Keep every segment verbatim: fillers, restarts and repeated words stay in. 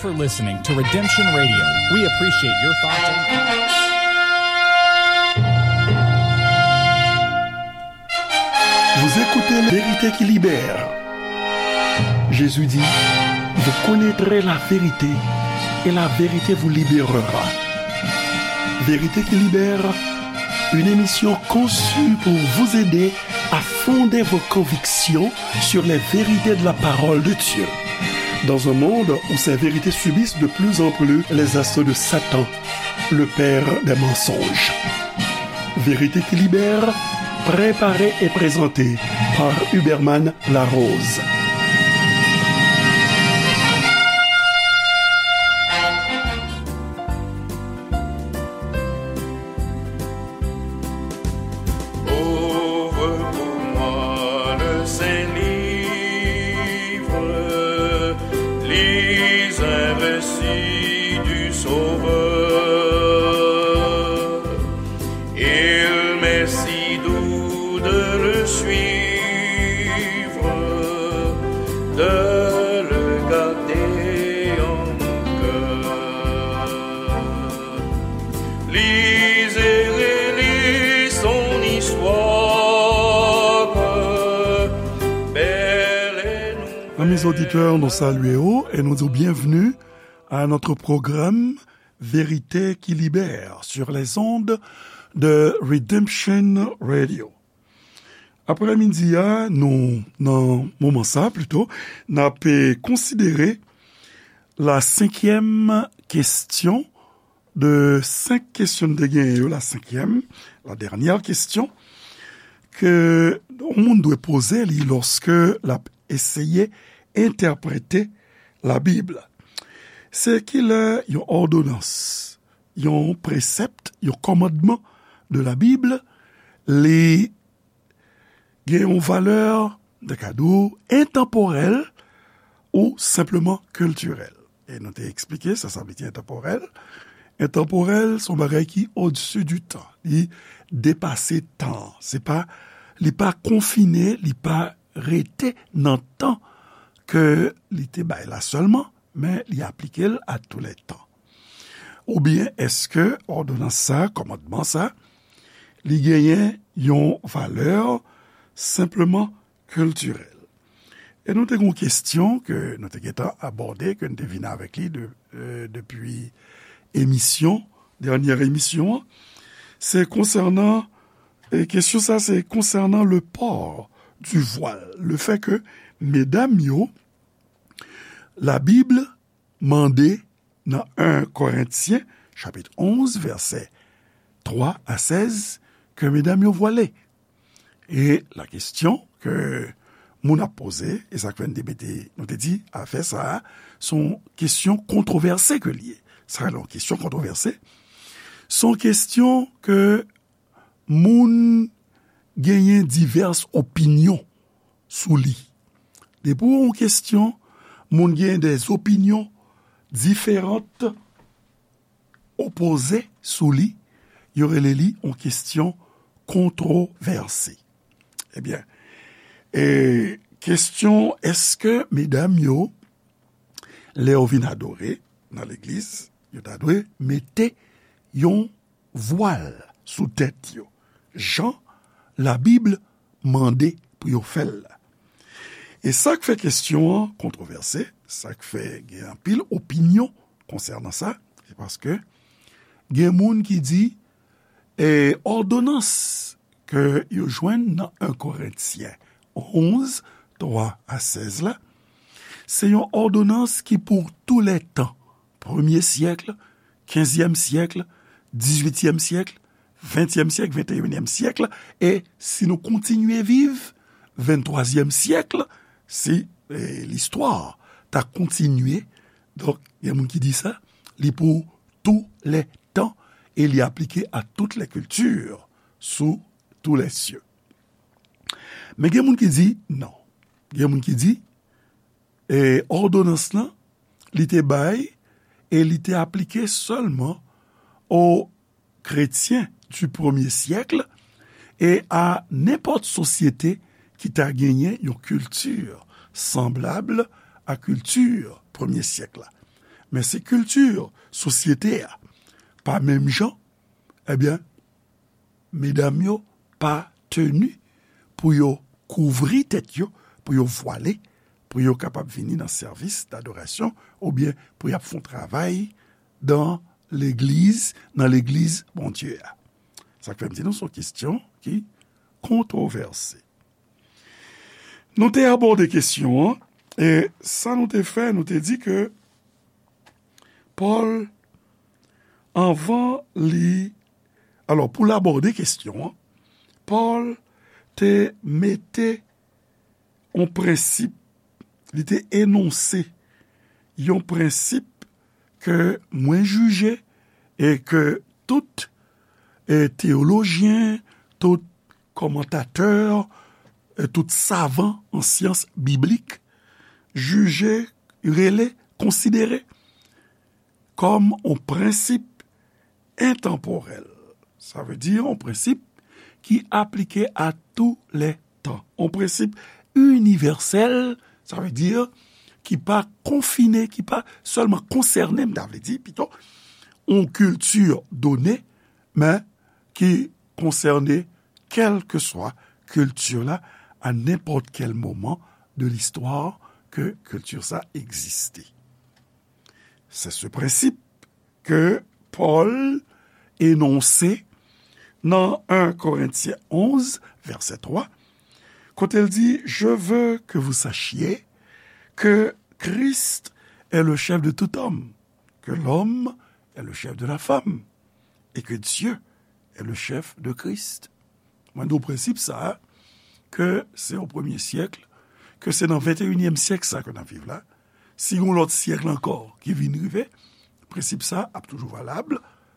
For listening to Redemption Radio. We appreciate your thoughts and comments. Vous écoutez La Vérité qui libère. Jésus dit, vous connaîtrez la vérité et la vérité vous libérera. Vérité qui libère, une émission conçue pour vous aider à fonder vos convictions sur les vérités de la parole de Dieu. Dans un monde où ces vérités subissent de plus en plus les assauts de Satan, le père des mensonges. Vérité qui libère, préparée et présentée par Huberman Larose. Ouvre pour moi le saint livre, lis un récit du Sauveur. Il m'est si doux de le suivre, de le garder en mon cœur. Lis et relis son histoire, belle et nouvelle. Amis auditeurs, nou salye w e nou di w byenvni à notre programme Vérité qui libère sur les ondes de Redemption Radio. Aprèmidi a, nou, nan moman sa, plito, n ap, eh, konsidere la senkyèm kesyon de senk kesyon n te genyen yo, la senkyèm, la dènyè kesyon, ke yon moun dwe poze li lòske l ap eseye entèprete Labib. Se kilè yon òdonans, yon presèp, yon kòmandman de Labib, li gen yon valè, de ka di w, entanporèl ou senpleman kiltirèl. E nou te eksplike sa, sa vle di entanporèl. Entanporèl, se yon bagay ki odsi di tan. Li depase tan. Se pa, li pa konfine, li pa rete nan tan ke li te bay la sèlman, men li aplike l a tou lè tan. Oubyen èske òdonans sa, kòmandman sa, li genyen yon valè senpleman kiltirèl? E nou te gen yon kesyon ke nou te gentan abòde, ke n te vin avèk li de, euh, depi emisyon, dènyè emisyon an. Se konsènan, e kesyon sa, se konsènan le port du voile, le fait que medam yo, Labib mande nan en Korentyen, chapit onz, vèsè twa a sèz, ke medam yo vwale. E la kesyon ke moun ap poze, e sa k fè n te mete, nou te di, afè sa a, se yon kesyon kontwovèse ke l ye. Sa rele yon kesyon kontwovèse. Se yon kesyon ke moun genyen divès opinyon sou li. Depi w yon kesyon, moun genyen des opinions différentes, opoze sou li, yo rele li yon kesyon kontwovèse. Ebyen, e kesyon, èske medam yo, lè yo vin adore nan legliz, yo ta dwe mete yon vwal sou tèt yo, jan Labib mande pou yo fè l la? E sa k fè kesyon an kontwovèse, sa k fè gen anpil opinyon konsènan sa, se paske gen moun ki di, e, òdonans ke yo jwenn nan en Korentyen onz, twa a sèz la, se yon òdonans ki pou tou lè tan, premye syèk, kenzyèm syèk, dizuityèm syèk, ventyèm syèk, venteyinyèm syèk, e si nou kontinye viv, venntwazyèm syèk, si, e, listwa ta kontinye, donk, gen moun ki di sa, li pou tou lè tan, e li aplike à toutes les cultures, sous tous les cieux. Men gen moun ki di non. Gen moun ki di, e, òdonans lan, li te bay, e li te aplike sèlman aux chrétiens du premier siècle, e a nenpòt sosyete ki ta genyen yon kilti sanblab a kilti premye syèk la. Men si kilti sosyete a pa menm jan, ebyen, medam yo pa teni pou yo kouvri tèt yo, pou yo vwale, pou yo kapab vini nan sèvis dadorasyon, oubyen pou y ap fè yon travay dan legliz, nan legliz Bondye a. Sa k fè m di nou se yon kesyon ki kontwovèse. Nou te abòde kesyon an, e sa nou te fè, nou te di ke Pòl, anvan li, alò, pou l abòde kesyon an, Pòl te mete yon prensip, li te enonse yon prensip ke mwen jije e ke tout, e, teyolojyen, tout kòmantatè, e, tout savan an syans biblik jije, rele, konsidere kòm yon prensip entanpòrèl. Sa vle di yon prensip ki aplike a tou lè tan. Yon prensip inivèsèl, sa vle di ki pa konfine, ki pa sèlman konsène, m ta vle di pito, yon kilti done, men ki konsène kèlkeswa kilti la, a nenpòt kèl moman de listwa ke kilti sa egziste. Se se prensip ke Pòl enonse nan en Korentyen onz, vèsè twa, kote l di, je veux que vous sachiez que Christ est le chef de tout homme, que l'homme est le chef de la femme, et que Dieu est le chef de Christ. Mwen di w prensip sa a, ke se o premye syèk, ke se nan venteyinyèm syèk sa ke n ap viv la, si yon lòt syèk ankò ki vin rive, prensip sa ap toujou valab,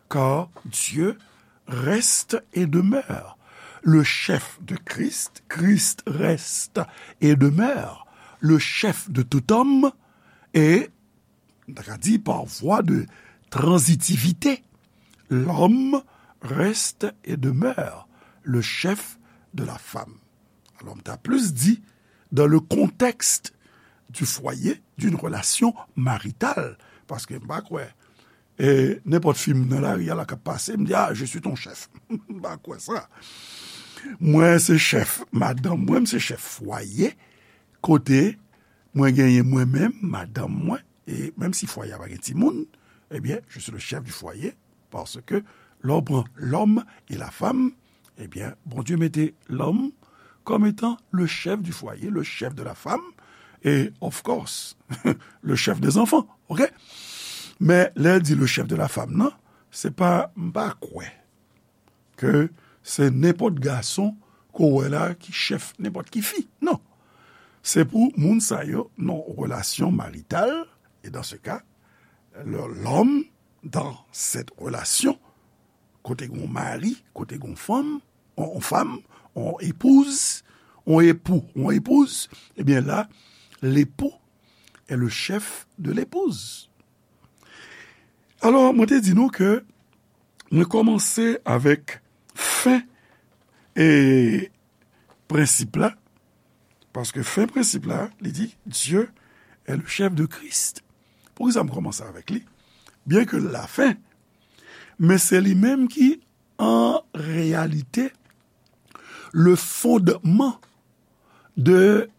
car Dieu reste et demeure. Le chef de Christ, Christ reste et demeure le chef de tout homme, et, nou ta ka di, par voie de transitivité, l'homme reste et demeure le chef de la femme. Alò, m ta plis di, dans le contexte du foyer, d'une relation maritale, paske m pa kwè, e, nenpòt fi m nan lari a la k ap pase, m di, ah, je suis ton chef. M pa kwè sa. Mwen se chèf madanm mwen, m se chèf fwaye, kote mwen genyen mwen menm, madanm mwen, e menm si fwaye a pa gen timoun, ebyen, je suis le chef du foyer, parce que lè w pran l'homme et la femme, ebyen, Bondye mete l'homme comme étant le chef du foyer, le chef de la femme, et of course, le chef des enfants, ok? Men, lè l di le chef de la femme, non, se pa, m pa kwè ke se nenpòt gason ke w wè la ki chèf nenpòt ki fi. Non. Se pou moun sa yo nan relasyon marital, et dans ce cas, le, l'homme, dans cette relation, kote gon mari, kote gon fanm, on, on fanm, on epouz, on epou, on epouz, ebyen la, l'époux est le chef de l'épouse. Alò, mwen te di nou ke mwen kòmanse avèk fen e prensip la, paske fen prensip la, li di, Dieu est le chef de Christ. Poukisa m kòmanse avèk li? Byen ke l lafen, men se li menm ki, an reyalite, le fondman de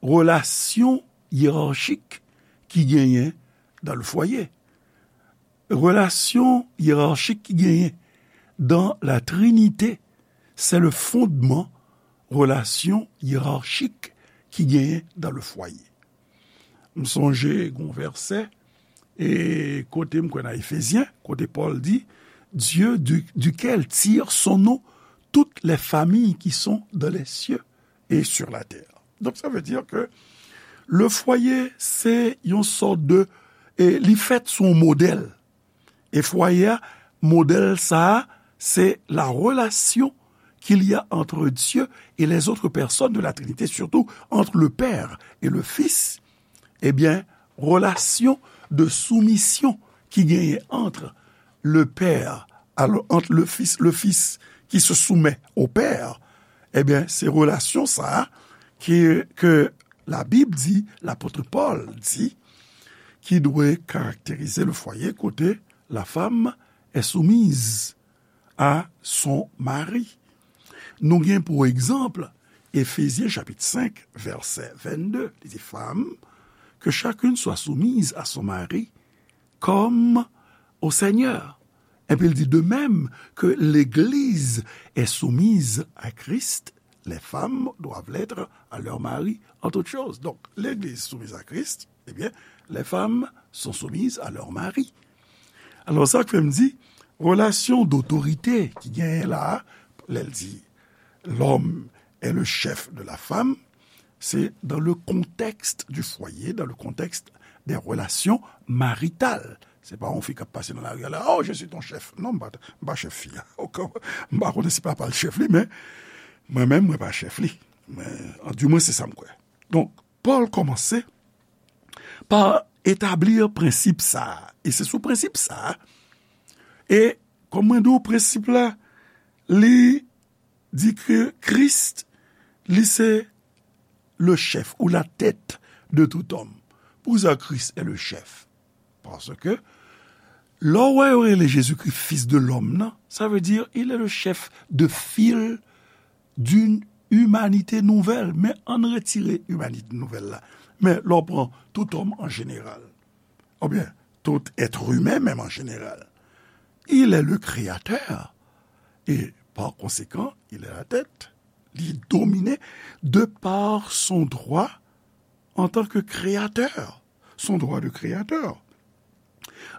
relasyon yerarchik ki genyen dans le foyer. Relasyon yerarchik ki genyen dans la Trinité, c'est le fondement relasyon yerarchik ki genyen dans le foyer. M sonje gon vèsè, e kote m kwè nan Efezyen, kote Pòl di, Dieu du, duquel tirent son nom toutes les familles qui sont dans les cieux et sur la terre. Donk, sa vle di ke le foyer, se yon sòt de, e li fèt sou yon modèl. E fwaye a, modèl sa a, se la relation qu'il y a entre Dieu et les autres personnes de la Trinité, surtout entre le Père et le Fils. Ebyen, relasyon de soumisyon ki genyen entre le Père, alors, entre le Fils, le Fils qui se soumet au Père, ebyen, se relasyon sa a ke, ke Labib di, lapot Pòl di, qui doit caractériser le foyer, kote la femme est soumise à son mari. Nou gen pou egzanp Efezyen chapit senk, vèsè vennde. Li di, Femmes, que chacune soit soumise à son mari comme au Seigneur. Epi l di, De même que l'Église est soumise à Christ, les femmes doivent l'être à leur mari en toutes choses. Donc, l'Église soumise à Christ, eh bien, les femmes sont soumises à leur mari. Alò, sa k fè m di, relasyon dotorite ki genyen la, lè l di, L'homme est le chef de la femme, c'est dans le contexte du foyer, dans le contexte des relations maritales. Se pa yon fi k ap pase nan lari a la, Oh, je suis ton chef. Non, m pa, m pa chèf fi a. M pa konnen si papa l chèf li, men mwen menm, mwen pa chèf li. Men, an, di mwen, se sa m kwè. Donk, Pòl kòmanse pa etabli prensip sa a. E se sou prensip sa a. E, kòm mwen di w, prensip la, li di ke Kris, li se le chef ou la tête de tout homme. Poukisa Kris est le chef? Paske, lè w wè yo rele Jezikri Fils de l'homme nan, sa vle di, il est le chef de fil d'une humanité nouvelle. Men ann retire imanite nouvèl la. Men lè w pran tout homme en général, oubyen tout être humain menm en général, il est le créateur. Et par conséquent, il est la tête. Li domine de par son droit en tant que créateur, son droit de créateur.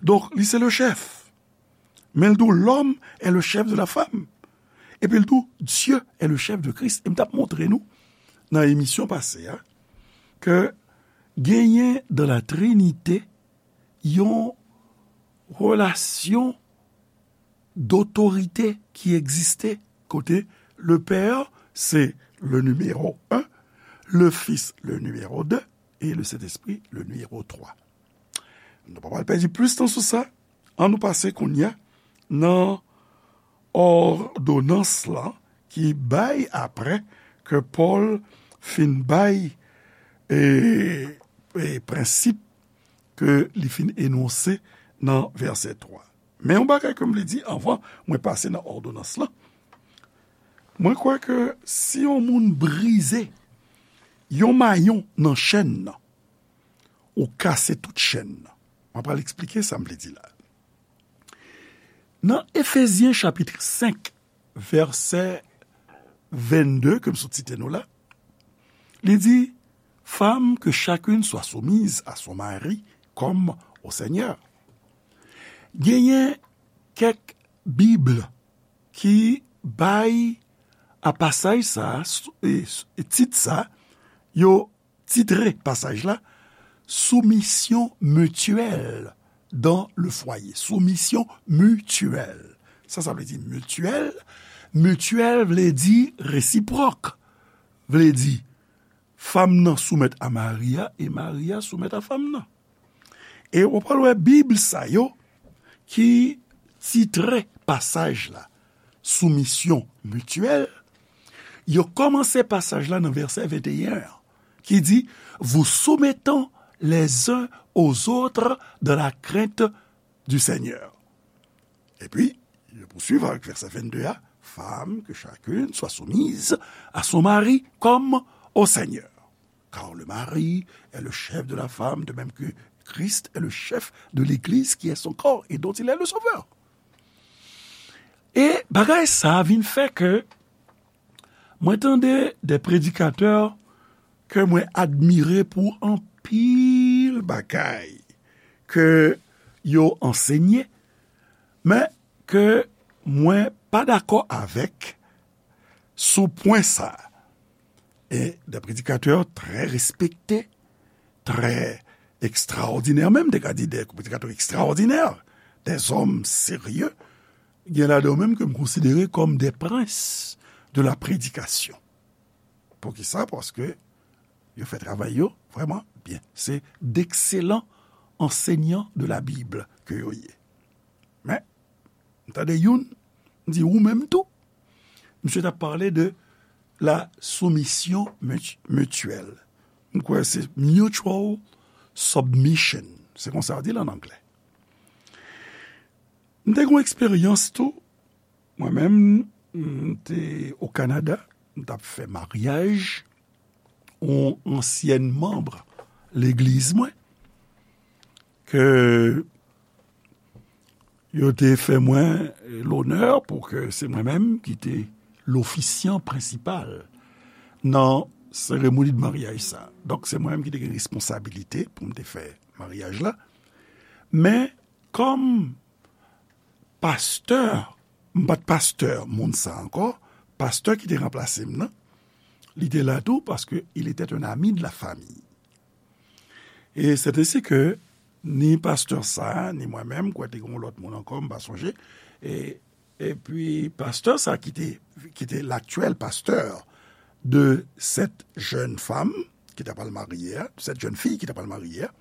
Donk, li se le chef. Men l di w, L'homme est le chef de la femme. Epi l di w, Dieu est le chef de Christ. E m t ap montre nou, nan emisyon pase a, ke genyen dans la Trinité yon relasyon dotorite ki egziste, kote le Père, se le numéro un, le Fils, le numéro deux, et le Saint-Esprit, le numéro trois. Nou pa pral pèdi plis tan sou sa. Ann nou pase kounye a nan òdonans lan ki bay apre ke Pòl fin bay, e, e, prensip ke li fin enonse nan vèsè twa. Men yon bagay ke m vle di anvan mwen pase nan òdonans lan. Mwen kwè ke si yon moun brize yon mayon nan chèn nan, ou kase tout chèn nan. Mwen pral eksplike sa m vle di la. Nan Efezyen chapit senk, vèsè vennde, ke m sot site nou la, li di, Femmes, que chacune soit soumise à son mari comme au Seigneur. Genyen kèk Bib ki bay a pasaj sa a, s-, e, s-, e tit sa, yo titre pasaj la, Soumission mutuelle dans le foyer. Soumission mutuelle. Sa, sa vle di mityèl. Mityèl vle di resipwòk. Vle di, fanm nan soumèt a mari a e mari a soumèt a fanm nan. E w pral wè Bib sa yo ki titre pasaj la soumisyon mityèl, yo kòmanse pasaj la nan vèsè venteyen an, ki di, Vous soumettant les uns aux autres dans la crainte du Seigneur. Epi, yo pouswiv avèk vèsè vennde a, Femmes, que chacune soit soumise à son mari comme au Seigneur. Car le mari est le chef de la femme, de même que Christ est le chef de l'Église, qui est son corps, et dont il est le sauveur. E bagay sa a vin fè ke mwen tande de predikatè ke mwen admire pou anpil bagay ke yo ansenye, men ke mwen pa dakò avèk sou pwen sa a. E de predikatè trè respekte, trè ekstraòdinè, menm te ka di de predikatè ekstraòdinè, de zòm serye, gen ladan yo menm ke m konsidere kòm de prens de la predikasyon. Poukisa? Paske yo fè travay yo vrèman byen. Se d'ekselan ansèyan de la Bib ke yo ye. Men, m tande youn, m di, ou menm tou. Misye t ap pale de la soumission mutu-, mutuelle. M kwè se mutual submission. Se konsa yo di l an anglè. M te gen yon eksperyans tou. Mwen menm, m te o Kanada, m t ap fè maryaj yon ansyèn manm legliz mwen, ke yo te fè mwen lonè pou ke se mwen menm ki te lofisyan prensipal nan seremoni de maryaj sa. Donk, se mwen menm ki te gen responsabilite pou m te fè maryaj la. Men, kòm pastè, m pa t pastè moun sa ankò, pastè ki te ranplase m nan, li te la tou paske il était un ami de la famille. E c'est ainsi que ni pastè sa, ni mwen menm, kwè te gen yon lòt moun ankò, m pa sonje, e, epi pastè sa ki te, ki te l'actuel pasteur de cette jeune femme ki t ap al marye a, de cette jeune fille ki t ap al marye a,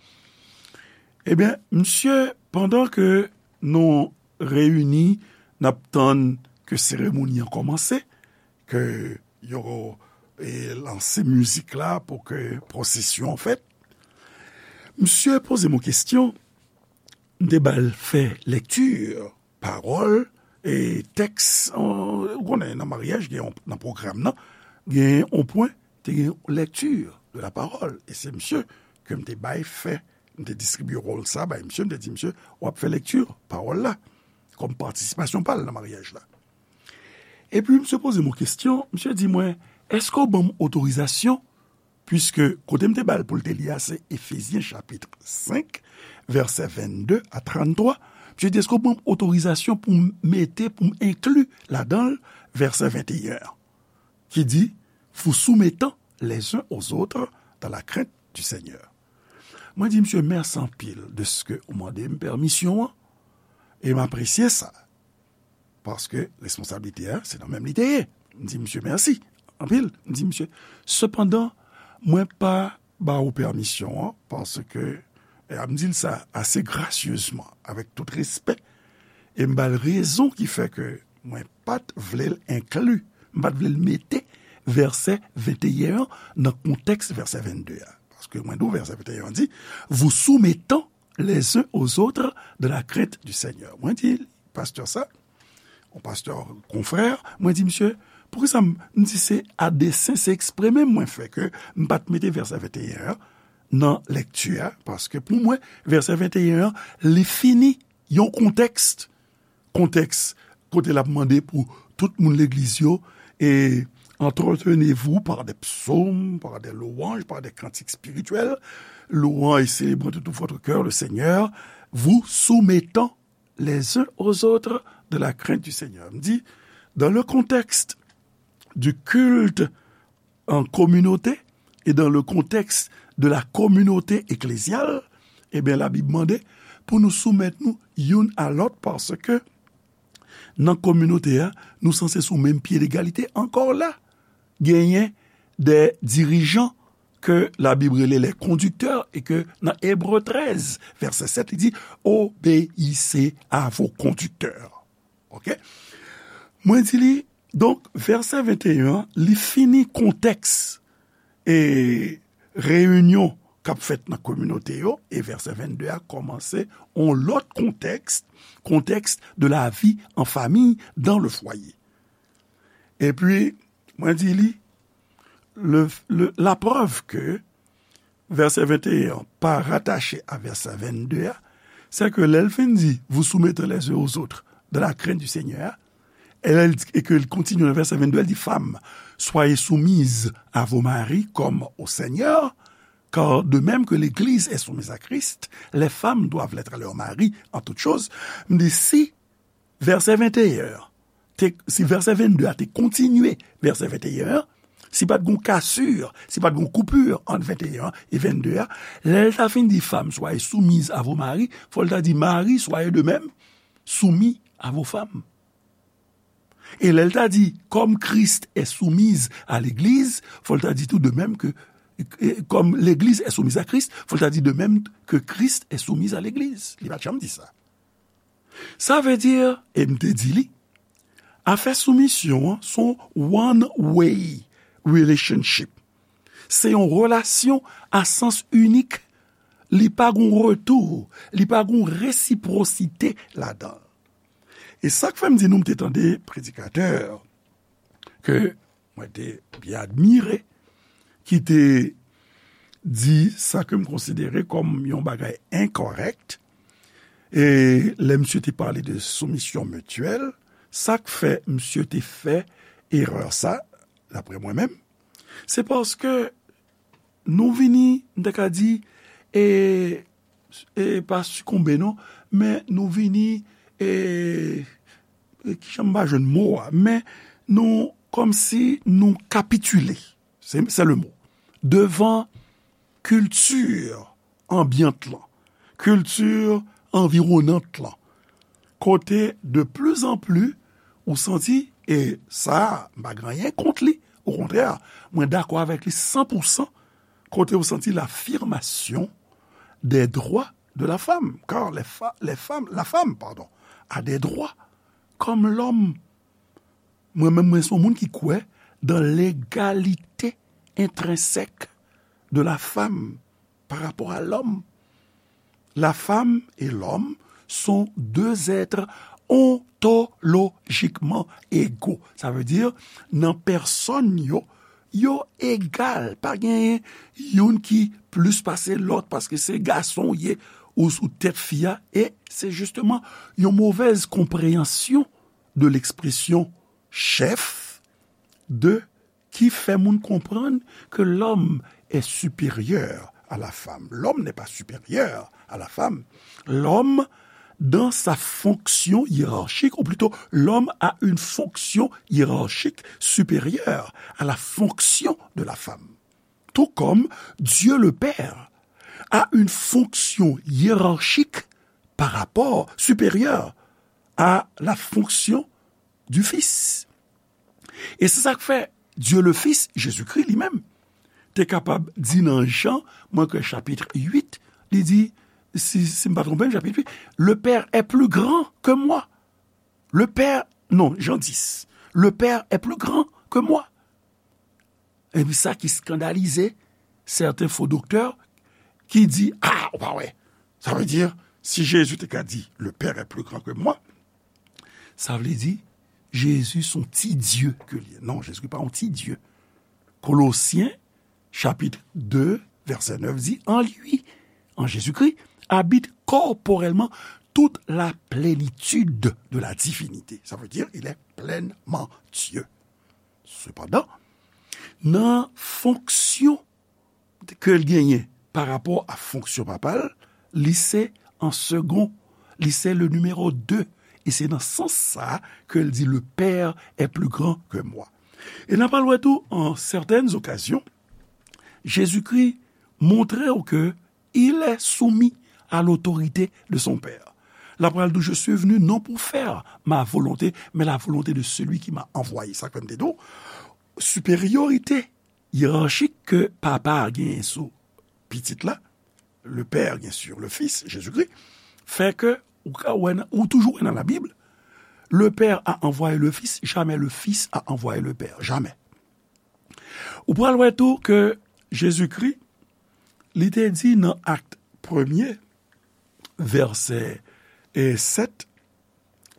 ebyen, misye, pandan ke nou reyini, n ap tann ke seremoni an kòmanse, ke yo, e, lanse mizik la pou ke pwosesyon an fèt. Misye poze m yon kesyon, m te ba l fè lekti, pawòl, e tèks, an, ou konnen, nan maryaj, gen yon, nan pwogram nan, gen yon pwen, te gen lekti de la parole. E se misye ke m te bay fè, m te distribye wòl sa bay misye, m te di misye, w ap fè lekti pawòl la, kòm patisipasyon pa l nan maryaj la. Epi misye poze m yon kesyon, misye di mwen, èske w ban m otorizasyon, piske kote m te ba l pou l te li a, se Efezyen chapit senk, vèsè vennde a tranntwa, misye di, èske w ban m otorizasyon pou m mete, pou m enkli ladan l vèsè venteyen an, ki di, vous soumettant les uns aux autres dans la crainte du Seigneur. Mwen di misye mèsi anpil de ce que ou mande m pèmisyon an, e m apresye sa. Paske responsablite a, se nan men m li te ye. M di misye mèsi anpil. M di misye, sepandan, mwen pa ba ou pèmisyon an, paske, e m di l sa ase grasyezman, avèk tout respè, e m ba l rezon ki fè ke mwen pa t vle l enkli, m pa t vle l mete vèsè venteyen an nan kontèks vèsè vennde a. Paske mwen di w vèsè venteyen an di, vous soumettant les uns aux autres dans la crainte du Seigneur. Mwen di pastè sa, yon pastè konfrè, mwen di misye, poukisa m, m di se a desen, se eksprè menm mwen fè ke m pa t mete vèsè venteyen an nan lekti a, paske pou mwen, vèsè venteyen an, li fini yon kontèks, kontèks kote l ap mande pou tout moun legliz yo, et entretenez-vous par des psaumes, par des louanges, par des cantiques spirituels, louant et célébrant de tout votre cœur le Seigneur, vous soumettant les uns aux autres dans la crainte du Seigneur. M di, dans le contexte du culte en communauté et dans le contexte de la communauté ecclésiale, ebyen, Labib mande pou nou soumèt nou youn a lòt, paske nan kominote a, nou sanse sou menm pye legalite. Ankò la, genyen de dirijan ke Labib rele les conducteurs, e ke nan Ebre trèz, vèsè sèt, li di, obéissez à vos conducteurs. Ok? Mwen di li, donk, vèsè venteyen an, li fini kontèks, e, reyinyon k ap fèt nan kominote yo, e vèsè vennde a kòmanse yon lòt kontèks, contexte de la vie en famille dans le foyer. Epi, mwen di li, le, le, la preuve que vèsè venteyen an pa ratache a vèsè vennde a, c'est que lè l fin di, vous soumettre les uns aux autres dans la crainte du Seigneur, et, et que l kontinye nan vèsè vennde, l di, femmes, soyez soumises à vos maris comme au Seigneur, car de même que l'Église est soumise à Christ, les femmes doivent l'être à leur mari en toutes choses. M di, si vèsè venteyen an, te, si vèsè vennde a te kontinye vèsè venteyen an, si pa t gon kasir, si pa t gon koupir ant venteyen an e vennde a, lè l ta fin di, femmes, soyez soumises à vos maris, fò l ta di, maris, soyez de même soumis à vos femmes. E lè l ta di, comme Christ est soumis à l'Église, fò l ta di tou, de même que, e, comme l'Église est soumise à Christ, fò l ta di, de même que Christ est soumis à l'Église. Li pa t janm di sa. Sa vle di, e m te di li, afè soumisyon an, se yon one way relationship. Se yon relasyon a sans inik li pa gon retou, li pa gon resipwosite ladan l. E sa k fè m di nou, m te tande predikatè ke mwen te byen admire, ki te di sa ke m konsidere kòm yon bagay enkòrèk. E lè misye te pale de soumisyon mityèl, sa k fè misye te fè erè sa, daprè mwen menm, se paske nou vini, m ta ka di, e, e pa sikonbe non, men nou vini, e, e kijan m pa jwenn mo a, men nou kòmsi nou kapitile, se, se le mo, devan kilti anbyant lan, kilti anviwonant lan, kote de pli an pli ou santi, e sa, m pa gen anyen kont li, okontrè, mwen dakò avèk li san pou san, kote ou santi l'affirmation des droits de la femme, car les fa-, les femmes, la femme, pardon, a des droits comme l'homme. Mwen menm, mwen se yon moun ki kwè dans l'égalité intrinsèque de la femme par rapport à l'homme. La femme et l'homme sont deux êtres ontologiquement égaux. Sa vle di, nan pèsòn yo, yo egal. Pa genyen youn ki plis pase lòt paske se gason w ye ou sou tèt fi a. E se jisteman yon movèz konpreyansyon de l'expression chef de qui fait moun comprendre que l'homme est supérieur à la femme. L'homme n'est pas supérieur à la femme. L'homme, dans sa fonction hiérarchique, ou plutôt, l'homme a une fonction hiérarchique supérieure à la fonction de la femme. Tout comme Dieu le Père a une fonction hiérarchique par rapport, supérieure à la fonction du Fils. E se sa k fè Dieu le Fils, Jezikri li menm, te kapab di nan Jan, mwen kwè chapit uit, li di, si, si m pa twonpe m, chapit uit, le Père est plus grand que moi. Le Père, non, Jan dis, le Père est plus grand que moi. Epi sa ki eskandalize sèten fo doktè ki di, a, ou pa wè. Sa vle di, si Jezi te ka di, le Père est plus grand que moi, sa vle di, Jezi se yon ti Dye ke li ye. Non, Jezi pa yon ti Dye. Kolosyen, chapit de, vèsè nèf di, en lui, en Jésus-Christ, habite corporellement toute la plénitude de la divinité. Ça veut dire, il est pleinement Dieu. Sepandan, nan fonksyon ke l genyen pa rapò a fonksyon papa l, li se an segon, li se le numéro deux. E se nan sans sa a ke l di, le Père est plus grand que moi. E n ap al wè tou, an sètèn okazyon, Jezikri montre w ke il est soumis à l'autorité de son Père. L ap pral di w, je suis venu non pour faire ma volonté, mais la volonté de celui qui m'a envoyé. Sa k fè m te di w, siperyorite yerachik ke papa a genyen sou pitit la, le Père, bien sûr, le Fils, Jésus-Christ, fè ke ou ka wè nan, ou toujou wè nan Labib, le Père a envoyé le Fils, jamais le Fils a envoyé le Père, jamais. Ou pral wè tou ke Jezikri, li te di nan Akt premye, vèsè, e, sèt,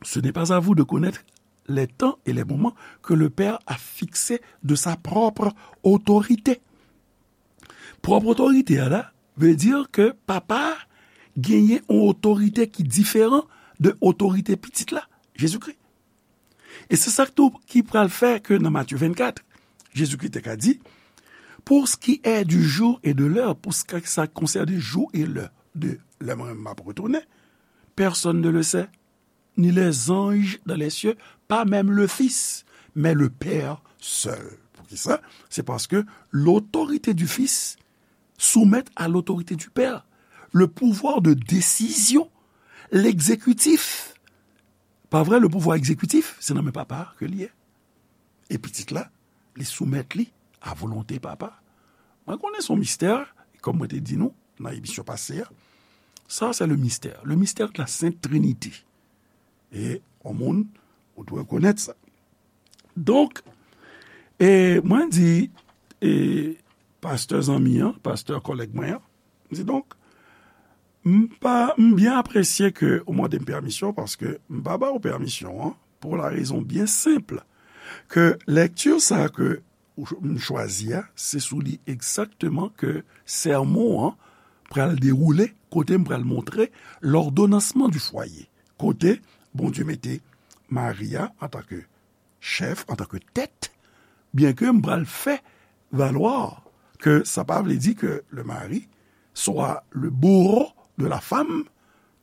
ce n'est pas à vous de connaître les temps et les moments que le Père a fixés de sa propre autorité. Pwòp otorite a la vle di ke papa a genyen yon otorite ki diferan de otorite pitit la, Jezikri. E se sa k tou ki pral fè ke nan Matye vennkat, Jezikri te ka di, pour ce qui est du jour et de l'heure, pou sa k konsène jou e lè de lè mwen menm m ap retounen, personne ne le sait, ni les anges dans les cieux, pas même le Fils, mais le Père seul. Poukisa? Se paske l'autorité du Fils soumet à l'autorité du Père. Le pouvoir de décision, l'exécutif. Pa vre, le pouvoir exécutif, se nan men papa ke li ye. E pitit la, li soumèt li a volonte papa. Mwen konnen se yon mistè, kòm mwen te di nou nan emisyon pase a. Sa, se le mystère. Le mystère de la Sainte Trinité. E yon moun, ou dwe konèt sa. Donk, e mwen di, e pastè zanmi an, pastè kòlèg mwen an, m di donk, M pa, m byen apresye ke ou mande m pèmisyon, paske m pa ba ou pèmisyon an, pou la rezon byen senp ke lekti sa ke ou ch-, m chwazi a, se sou li egzakteman ke sèmon an pral dewoule, kote m pral montre l'ordonnancement du foyer, kote Bondye mete Mari a antanke chèf, antanke tèt, byenke m pral fè valwa ke sa pa vle di ke le mari swa le bourreau de la femme,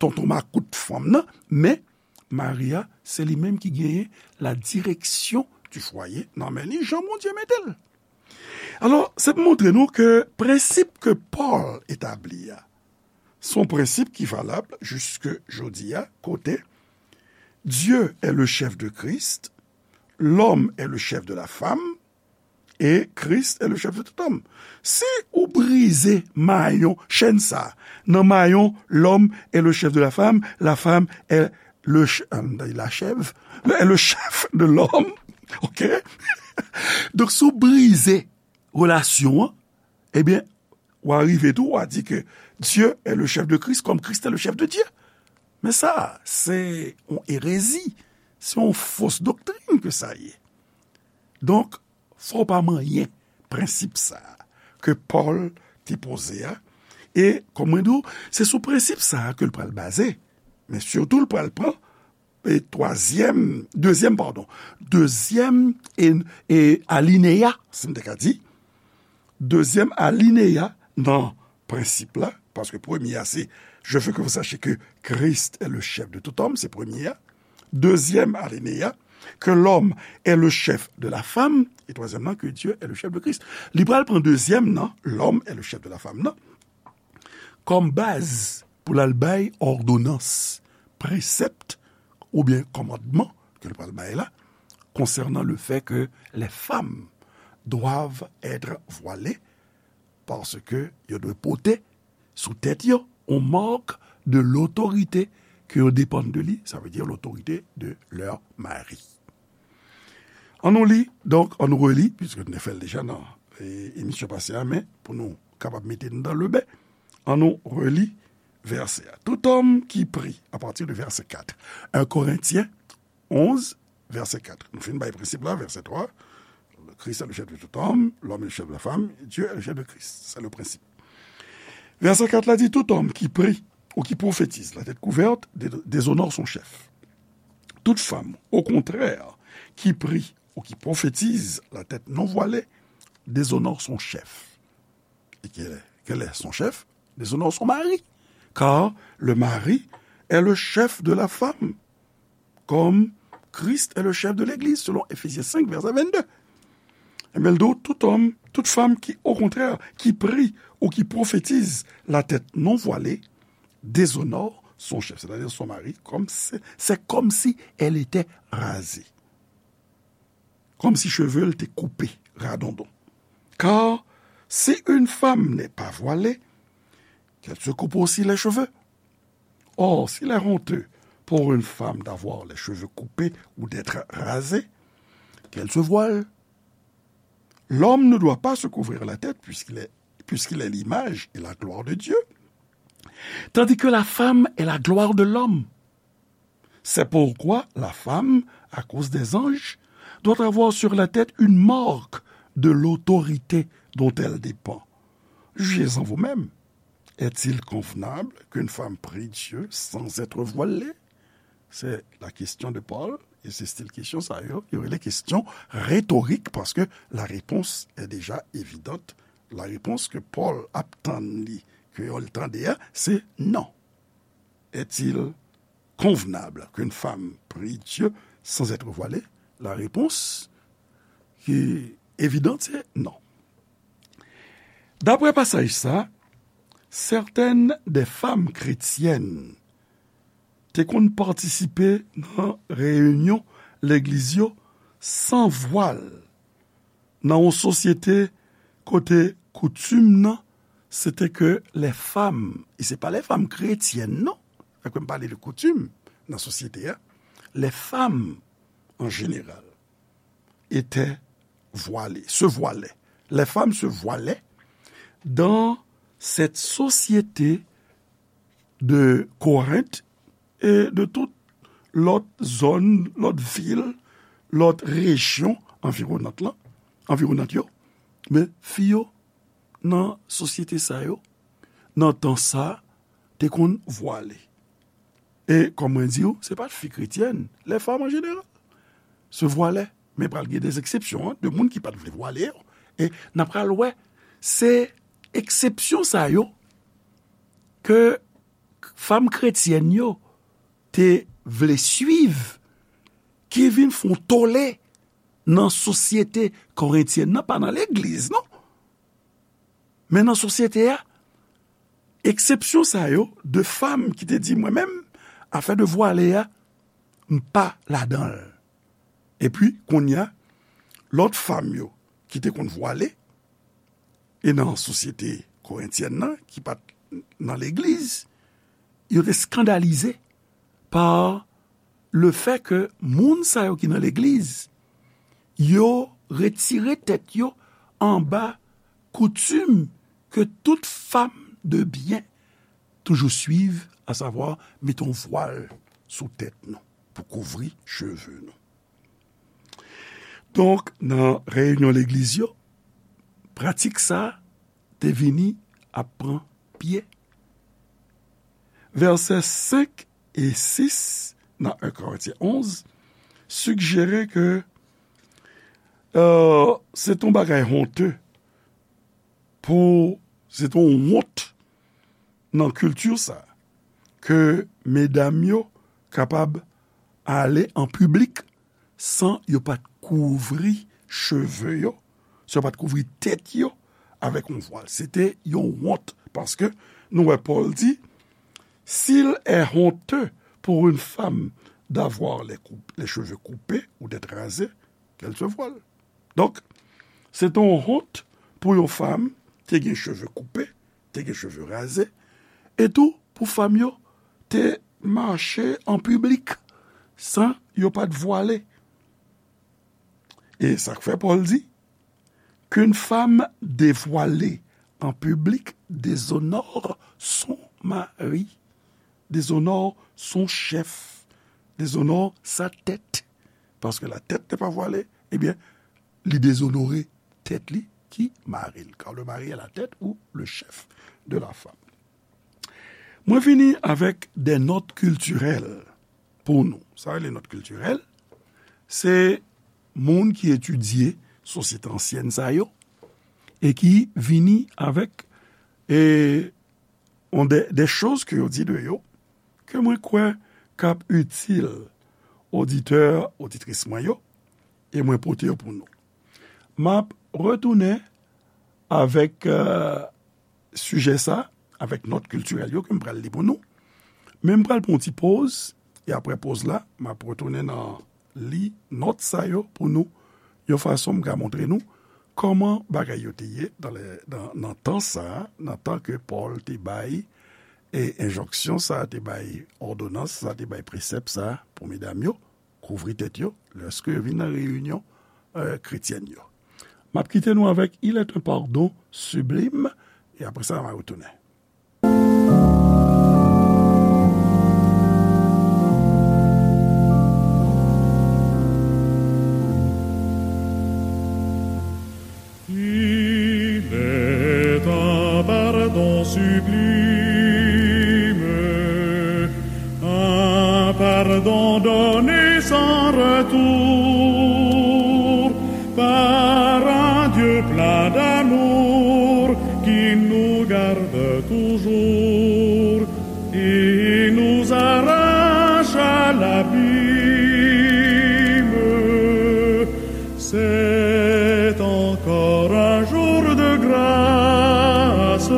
tonton makout fanm nan, men Mari a, se li menm ki genyen la direction du foyer nan men li, jan Bondye mete l. Alò, se pou montre nou ke prensip ke Pòl etabli a, se yon prensip ki valab jiske jodi a, kote Dieu est le chef de Christ, l'homme est le chef de la femme, et Christ est le chef de tout homme. Si ou brize mayon, chèn sa, nan mayon, l'homme est le chef de la femme, la femme est le ch-, euh, la chèv, le, est le chef de l'homme, ok? Donk, si ou brize relasyon an, ebyen, w a rive tou, w a di ke Dieu est le chef de Christ comme Christ est le chef de Dieu. Men sa, se yon erezi, se yon fos doktrin ke sa ye. Donk, fò w pa manyen prensip sa a ke Pòl te poze a. E, kòm mwen di w, se sou prensip sa a ke l pral baze. Men sitou, l pral pran, e, twazyèm, dezyèm, padon, dezyèm e, e alineya, si m te ka di, dezyèm alineya nan prensip la, paske premye a se, je veux que vous sachiez que Christ est le chef de tout homme, se premye a. Dezyèm alineya, que l'homme est le chef de la femme, e twazyèm nan, que Dieu est le chef de Christ. Li pral pran dezyèm nan, l'homme est le chef de la femme nan, kòm baz pou l al bay òdonans, presèpt oubyen kòmandman ke l pral bay la, concernant le fait que les femmes doivent être voilées, paske yo dwe pote sou tèt yo yon mak de lotorite ke yo depann de li, sa vle di lotorite de leur mari. An nou li, donk, an nou reli, piske nou te fè l deja nan, e, emisyon pase a, men pou nou kapab mete nou dan le ben, an nou reli vèsè a. Tout homme qui prie, à partir de verset quatre. Un Corinthiens onze, verset quatre. Nou fin bay prensip la, verset trois. Christ est le chef de tout homme, l'homme est le chef de la femme, Dieu est le chef de Christ. C'est le principe. Verset quatre la di, tout homme qui prie ou qui prophétise la tête couverte dé-, déshonore son chef. Toute femme, au contraire, qui prie ou qui prophétise la tête non voilée déshonore son chef. Et quel est, quel est son chef? Déshonore son mari. Car le mari est le chef de la femme, comme Christ est le chef de l'Église, selon Éphésiens cinq, verset vingt-deux. Ebyen, l di w, tout homme, toute femme qui, au contraire, qui prie ou qui prophétise la tête non voilée, déshonore son chef, c'est-à-dire son mari, comme c'est, c'est comme si elle était rasée. Comme si cheve l te koupe, radondon. Car si une femme n'est pas voilée, qu'elle se coupe aussi les cheveux. Or, s'il est honteux pour une femme d'avoir les cheveux coupés ou d'être rasée, qu'elle se voile. L'homme ne doit pas se couvrir la tête puisqu'il est, puisqu'il est l'image et la gloire de Dieu, tandis que la femme est la gloire de l'homme. C'est pourquoi la femme, à cause des anges, doit avoir sur la tête une marque de l'autorité dont elle dépend. Jugez-en vous-même. Est-il convenable qu'une femme prie Dieu sans être voilée? C'est la question de Paul, et c'est style question sa yo, yo rele question rhétorique, parce que la réponse est déjà évidente. La réponse que Paul ap tann li, ke yo tande a, c'est non. Est-il convenable qu'une femme prie Dieu sans être voilée? La réponse qui est évidente, c'est non. D'après passage ça, certaines des femmes chrétiennes te konn patisipe nan reyinyon legliz yo san vwal, nan yon sosyete kote koutim nan, se te ke les femmes, e se pa les femmes chrétiennes, non, fèk m pale de koutim nan sosyete a, les femmes en général étaient voilées, se voile. Les femmes se voile dans cette société de Korent e de tout lòt zòn, lòt vil, lòt rejyon anviwonant lan, anviwonant yo. Men fi yo nan sosyete sa yo, nan tan sa, te konn vwale. E, kòm mwen di w, se pa t fi kretyèn, les femmes en général se vwalè. Men pral gen de eksepsyon, an, de moun ki pa t vle vwale yo. E n ap pral wè, se eksepsyon sa yo ke fanm kretyèn yo te vle swiv, ki vin fè yon tole nan sosyete korentyèn nan, pa nan legliz, non. Men nan sosyete a, eksepsyon sa yo, de fanm ki te di, "Mwen menm, afè de vwale a, m pa ladan l." Epi, kounye a, lòt fanm yo ki te konn vwale, e nan sosyete korentyèn nan, ki pa t nan legliz, yo te eskandalize pa le fè ke moun sa yo ki nan legliz, yo retire tèt yo anba koutim ke tout fanm de byen toujou swiv, asavwa mete yon vwal sou tèt nou pou kouvri cheve nou. Donk, nan reyinyon legliz yo, pratik sa a te vini ap pran pye. Vèsè senk e sis nan en Korentyen onz sijere ke, euh, se t on bagay honte pou, se t on wont nan kilti sa, ke medam yo kapab ale an piblik san yo pa t kouvri cheve yo, san yo pa t kouvri tèt yo avèk yon vwal. Se te yon wont, paske nou wè Pòl di, "S'il est honteux pour une femme d'avoir les cou-, les cheveux coupés ou d'être rasée, qu'elle se voile." Donk, se te yon wont pou yon fanm te gen cheve koupe, te gen cheve raze, e tou pou fanm yo te mache an piblik san yo pa t vwale. E sa k fè Pòl di, "Qu'une femme dévoilée en public déshonore son mari, déshonore son chef, déshonore sa tête." Parce que la tête n'est pas voilée, eh bien, li dezonore tèt li, ki mari l. Car le mari est la tête ou le chef de la femme. Mwen vini avèk de nòt kiltirèl pou nou. Sa rele nòt kiltirèl, se moun ki etidye sosyete ansyèn sa yo, e ki vini avèk, e, on de, de choz ke yo di de yo, ke mwen kwè k ap itil oditè, oditris mwen yo, e mwen pote yo pou nou. M ap retounen avèk, euh, sijè sa, avèk nòt kiltirèl yo ke m pral li pou nou. Men m pral pran yon ti poz, e apre poz la, m ap retounen nan li nòt sa yo pou nou, yon fason m ka montre nou kòman bagay yo te ye nan lè, nan, nan tan sa a, nan tan ke Pòl te bay, e enjonksyon sa a te bay, òdonans sa a te bay, presèp sa a pou medam yo, kouvri tèt yo, lèske yo vin nan reyinyon, euh, kretyèn yo. M ap kite nou avèk Il est un pardon sublime, e apre sa, m a retounen. Il est un pardon sublime, un pardon donné sans retour par un Dieu plein d'amour qui nous garde toujours et nous arrache à l'abîme. C'est encore un jour de grâce.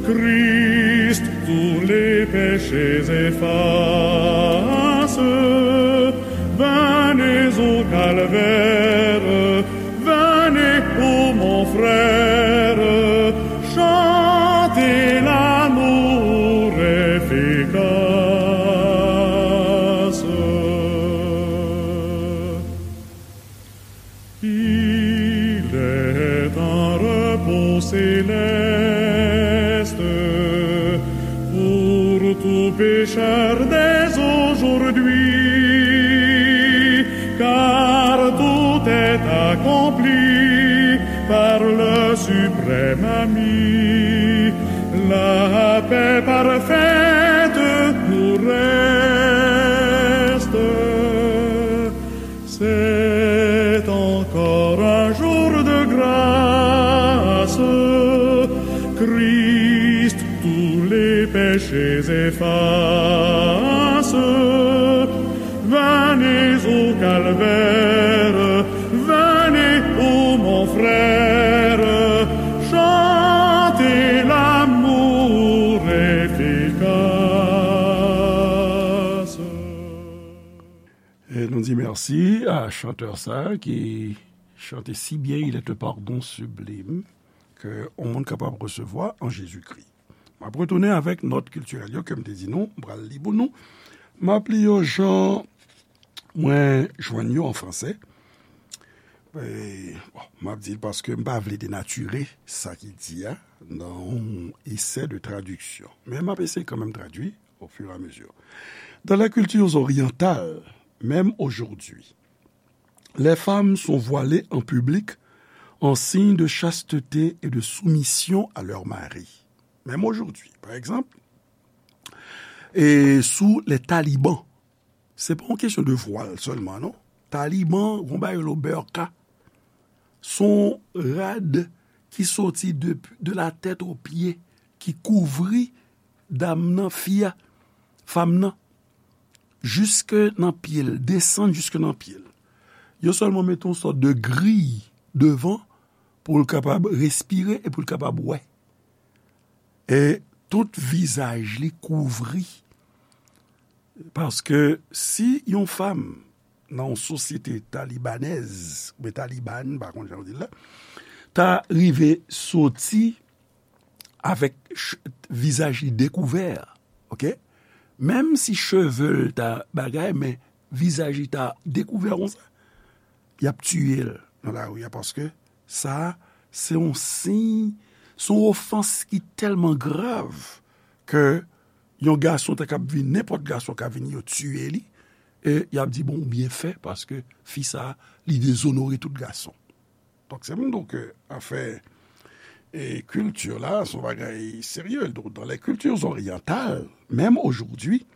Christ tous les péchés efface. Venez au calvaire, venez au mont Aujourd'hui, car tout est accompli par le suprême ami. La paix parfaite nous reste. C'est encore un jour de grâce. Christ tous les péchés efface. Venez au calvaire, venez, ô mon frère, chantez l'amour efficace. E nou di mèsi a chantè sa ki chante si byen, Il est un pardon sublime, ke yon moun kapab resevwa an Jezikri. M ap retounen avèk nòt kiltirèl yo ke m te di nou, m pral li pou nou. M ap li yo jan mwen jwenn yo an fransè. E, bon, m ap di l paske m pa vle denatire sa ki di a nan yon esè de tradiksyon. Men m ap eseye kanmenm tradui au fur et à mesure. Dans les cultures orientales, même aujourd'hui, les femmes sont voilées en public en signe de chasteté et de soumission à leur mari. Même aujourd'hui, par exemple, e sou les talibans, se pa yon kesyon de vwal sèlman, non. Taliban, yon bagay yo rele burqa, se yon rad ki soti de, de la tèt o pye, ki kouvri dam nan, fi a, fanm nan, jiske nan pye l, desann jiske nan pye l. Yo sèlman mete yon sòt de griy devan pou l kapab respire e pou l kapab wè. E tout vizaj li kouvri. Paske si yon fanm nan yon sosyete talibanèz, oubyen taliban, m pa konn jan yo di l la, ta rive soti avèk ch-, vizaj li dekouvè, oke? Menm si cheve l ta bagay, men vizaj li ta dekouvè konsa, y ap tiye l nan lari a, paske sa, se yon siy, se yon ofans ki tèlman grav ke yon gason ta kab vin, nenpòt gason ka vin, yo tiye li, e y ap di, bon, ou byen fè, paske fi sa, li dezonore tout gason. Donk, se pou m di w ke afè, e, kilti la, se yon bagay serye. Donk, dans les cultures orientales, même aujourd'hui,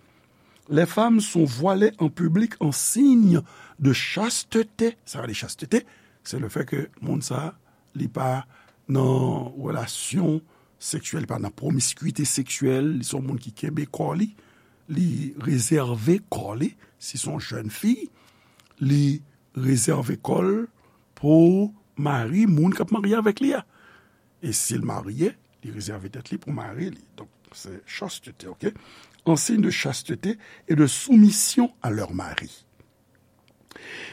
les femmes sont voilées en public en signe de chasteté. Sa vle di chasteté, se le fè ke moun sa, li pa nan relasyon seksyèl, li pa nan pwomiskite seksyèl, li se yon moun ki kenbe kò li, li rezève kò li, si se yon jèn fi, li rezève kò l pou mari, moun k ap marye avèk li a. E si l marye, li rezève tèt li pou mari li. Donk, se chasteté, oke? En signe de chasteté et de soumission à leur mari.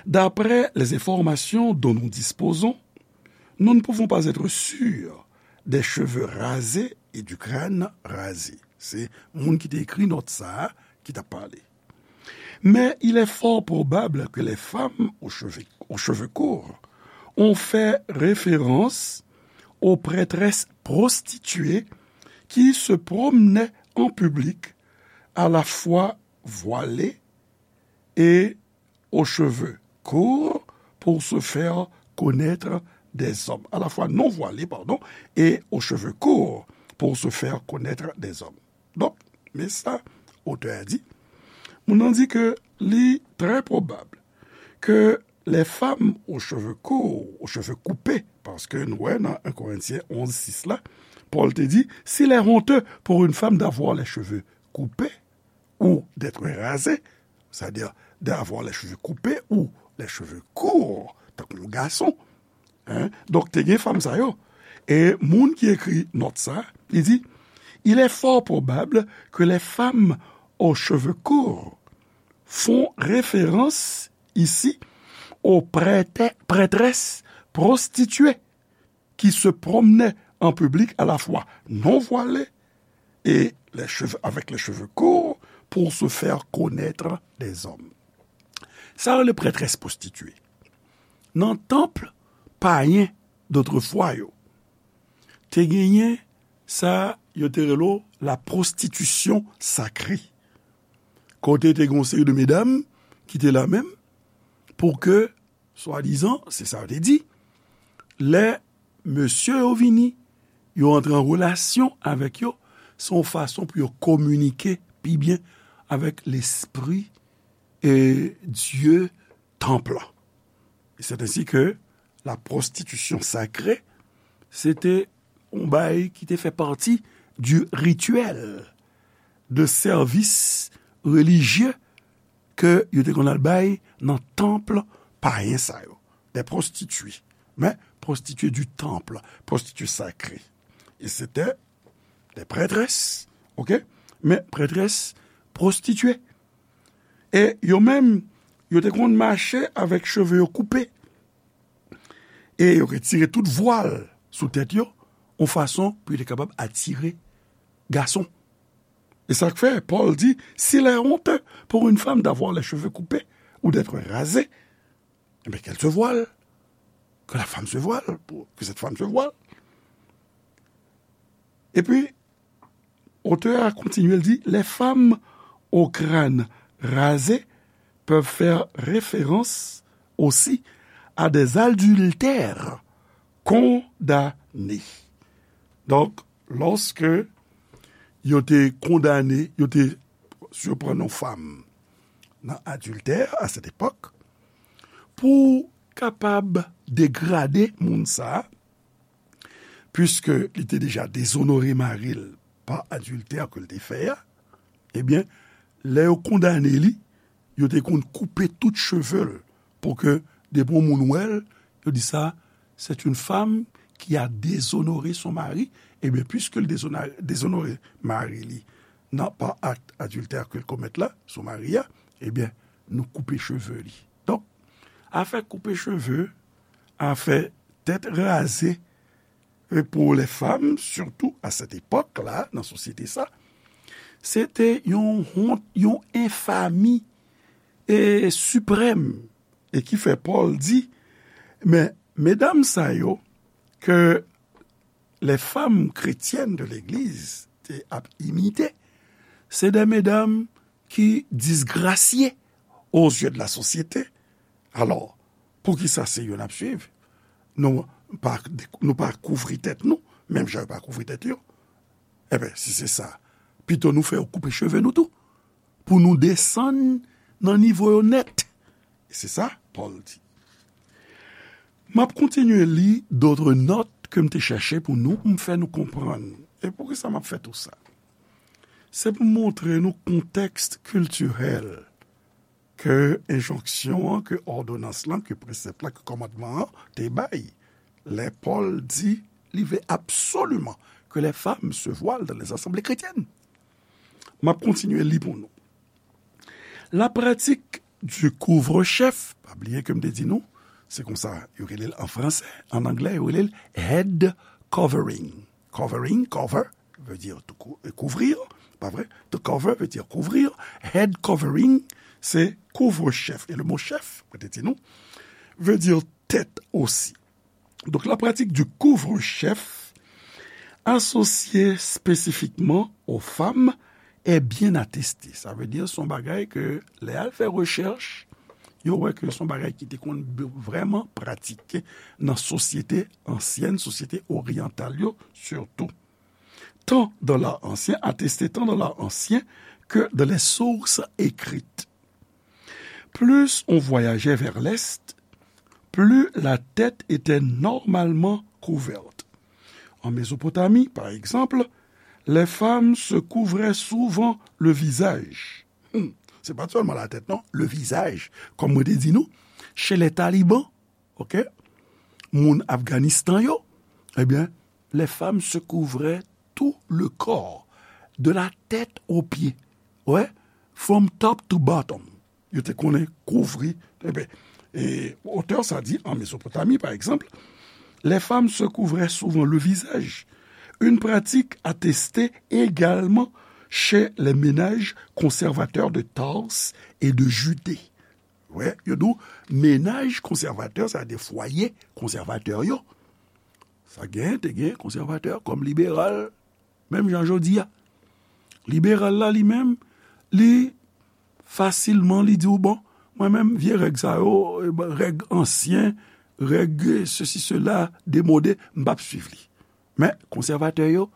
D'après les informations dont nous disposons, nous ne pouvons pas être sûrs des cheveux rasés et du crâne rasé. Se moun ki te ekri nòt sa a ki t ap pale. Mais il est fort probable que les femmes aux cheveux, aux cheveux courts ont fait référence aux prêtresses prostituées qui se promenaient en public, à la fois voilées et aux cheveux courts pour se faire connaître des hommes. À la fois non voilées, pardon, et aux cheveux courts pour se faire connaître des hommes. Donk, men sa otè a di, moun nan di ke li trè pwobab ke les femmes aux cheveux courts, aux cheveux coupés, paske nou wè nan en Korentyen onz sis la, Pòl te di, s'il est honteux pour une femme d'avoir les cheveux coupés ou d'être rasée, c'est-à-dire d'avoir les cheveux coupés ou les cheveux courts, tankou yon gason, Hein? Donk, te gen fanm sa yo. E moun ki ekri nòt sa, li di, il est fort probable que les femmes aux cheveux courts font référence ici aux prêtè-, prêtresses prostituées qui se promenaient en public à la fois non voilées et les cheveux, avec les cheveux courts pour se faire connaître des hommes. Sa yo rele prêtresse prostituée. Nan tanp payen dotrefwa yo, te genyen sa yo te rele la prostitution sacrée. kote te gen yon seri de medam ki te la menm pou ke, swadizan, se sa yo te di, lè mesye yo vini, yo antre an relasyon avèk yo, se yon fason pou yo kominike pi byen avèk lespri e Dye tanp lan. E c'est ainsi que la prostitution sacrée, se te yon bagay ki te fè pati du rituel de sèvis relijye ke yo te konn al bay nan tanp payen sa yo. Des prostituées. Men, prostituées du temple, prostituées sacrées. E se te des prêtresses, ok? Men, prêtresses prostituées. E yo menm, yo te konn mache avèk cheve yo koupe. E yo retire tout vwal sou tèt yo, yon fason pou yo te kapab atire gason. E sa k fè, Pòl di, s'il est honteux pour une femme d'avoir les cheveux coupés ou d'être rasée, eh bien, qu'elle se voile. Que la femme se voile, pour que cette femme se voile. Epi, otè a kontinye, l di, les femmes au crâne rasé peuvent faire référence aussi à des adultères condamnés. Donk, lòske yo te kondane, yo te siprann yon fanm nan adiltè a sèt epòk, pou kapab degrade moun sa a, puiske li te deja dezonore mari l pa adiltè ke l te fè a, ebyen, lè yo kondane li, yo te konn koupe tout cheve l pou ke depi yon moun wè l, yo di sa, c'est une femme qui a déshonoré son mari. Ebyen, puiske l dezona- dezonore mari li nan pa akt adiltè ke l komèt la sou mari a, ebyen, nou koupe cheve li. Donk, afè koupe cheve, afè tèt raze, e pou lè fanm, sitou a sèt epòk la, nan sosyete sa, se te yon wont, yon enfami e siprèm, e ki fè Pòl di, men medam sa yo ke les femmes chrétiennes de l'église te ap imite, se de medam ki disgrasye aux yeux de la société. Alò, poukisa se yo n ap swiv? Nou pa, nou pa kouvri tèt nou, menm jan yo pa kouvri tèt yo. Ebyen, si se sa, pito nou fè yo koupe cheve nou tou, pou nou desann nan nivo yo nèt. E se sa, Pòl di. M ap kontinye li d'autres notes ke m te chèche pou nou, pou m fè nou konprann. E poukisa m ap fè tou sa? Se pou montre nou kontèks kiltirèl ke enjonksyon an, ke òdonans lan, ke presèp la, ke kòmandman an te bay. Lè Pòl di, li vle absoliman que les femmes se voilent dans les assemblées chrétiennes. M ap kontinye li pou nou. La pratique du couvre-chef, pa bliye ke m te di nou, se konsa yo rele l an fransè, an anglè yo rele l head covering. Covering, cover, veut dire tout cou- euh, couvrir, pa vre? To cover veut dire couvrir. Head covering, se couvre-chef. E le mot chef, mwen te di nou, veut dire tête aussi. Donc, la pratique du couvre-chef associée spécifiquement aux femmes est bien attestée. Sa vle di, se yon bagay ke, lè al fè rechèch, yo wè ke se yon bagay ki te konn vrèman pratike nan sosyete ansyèn, sosyete oryantal yo, sitou. Tant dans l'art ancien, attesté tant dans l'art ancien que dans les sources écrites. Plus on voyageait vers l'est, plus la tête était normalement couverte. En Mésopotamie, par exemple, les femmes se couvraient souvent le visage. Hmm, se pa sèlman latèt, non, le visage. Kòm mwen te di nou, chez les talibans, ok, moun Afganistan yo, ebyen, les femmes se couvraient tout le corps, de la tête aux pieds. Ouais, from top to bottom. Yo te konnen kouvri. Ebyen, e otè sa di, en Mésopotamie, par exemple, les femmes se couvraient souvent le visage, une pratique attestée également chez les ménages conservateurs de Tarse et de Judée. Wè, yo di w, menaj konsèvatè, sa de fwaye konsèvatè yo. Sa gen, te gen konsèvatè kòm liberal, menm jan jodi a. Liberal la, li menm, li fasilman li di w, bon, mwen menm, vye règ sa yo, règ ansyen, règ sesi, sela, demode, m p ap swiv li. Men, konsèvatè yo,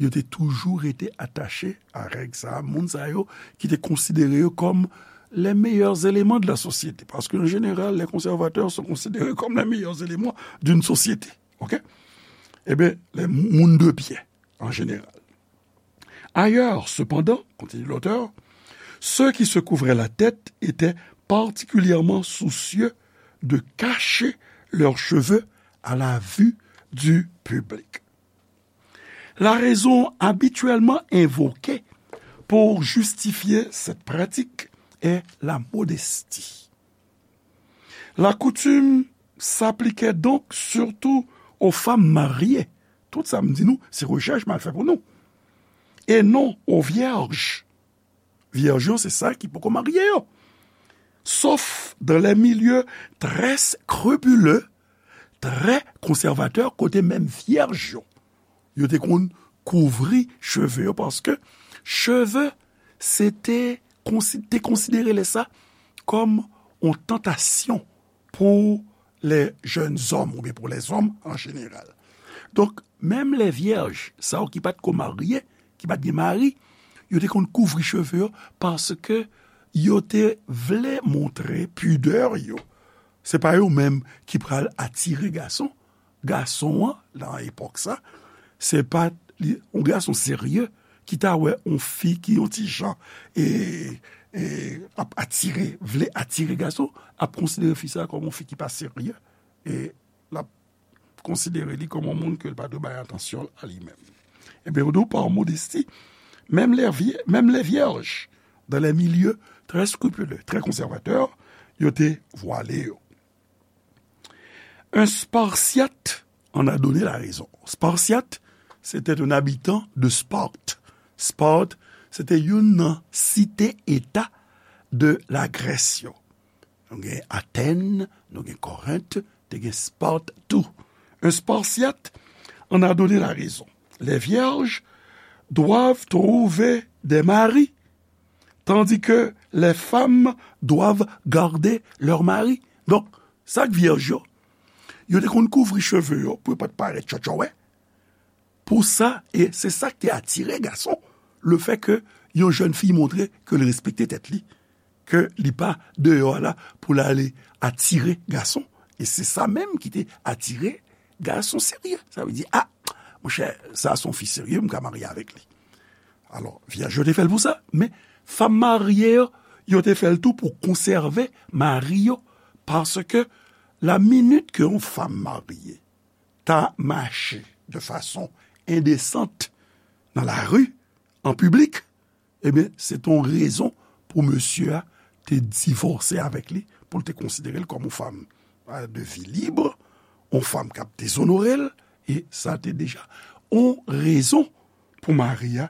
yo te toujou rete atache a règ sa a, moun sa yo ki te konsidere yo kòm les meilleurs éléments de la société. Paske, an jeneral, les conservateurs sont considérés comme les meilleurs éléments d'une société. Ok? Ebyen, les moun de bien, en général. Ailleurs, cependant, continue l'auteur, ceux qui se couvraient la tête étaient particulièrement soucieux de cacher leurs cheveux à la vue du public. La raison habituellement invoquée pour justifier cette pratique est la modestie. La coutume s'appliquait donc surtout aux femmes mariées. Tout sa m di nou, se rechèch m al fè pou nou. Et non aux vierges. Vyèj yo, se sa ki poko marye yo. Sauf dans les milieux très scrupuleux, très conservateurs, kote menm vyèj yo, yo te konn kouvri cheve yo, paske cheve, se te konsi-, te konsidere lè sa kòm yon tantasyon pou les jeunes hommes oubyen pou les hommes en général. Donk, menm les vierges, sa yo ki pa t ko marye, ki pa t gen mari, yo te konn kouvri cheve yo paske yo te vle montre pidè yo. Se pa yo menm ki pral atire gason. Gason an, nan epòk sa, se pa li, yon gason serye ki ta wè yon fi ki yon ti jan e, e, ap atire, vle atire gason, ap konsidere fi sa kòm yon fi ki pa serye. E l ap konsidere li kòm yon moun ke l pa dwe bay atansyon a li menm. Ebyen, ou di w pa modesti, menm les vie-, menm les vierges, dans les milieux très scrupuleux, très conservateurs, yo te vwale yo. Un Spartiate en a donné la raison. Spartiate, c'était un habitant de Sparte. Sparte, se te youn nan site eta de la Grèce yo. Nou gen Athènes, nou gen Corinth, te gen Sparte tou. Un Spartiate en a donné la raison. Les vierges doivent trouver des maris, tandis que les femmes doivent garder leurs maris. Donk, sa k vyèj yo, yo te konn kouvri cheve yo pou yo pa t parèt tchòtchòwè. Pou sa, e se sa k te atire gason, le fait que yon jèn fi montre ke l respekte tèt li, ke li pa deyò a la pou l ale atire gason. E se sa menm ki te atire gason serye. Sa vle di, a, monchè, sa se yon fi serye, m ka marye avèk li. Alò, vyèj yo te fè l pou sa, men fanm marye yo, yo te fè l tou pou konsève mari yo, paske la minit ke yon fanm marye ta mache de fason endesant nan lari, an piblik, ebyen, se te yon rezon pou mesye a te divòse avèk li, pou l te konsidere l kòm yon fanm, euh, de vie libre, yon fanm k ap dezonore l, e sa te deja yon rezon pou mari a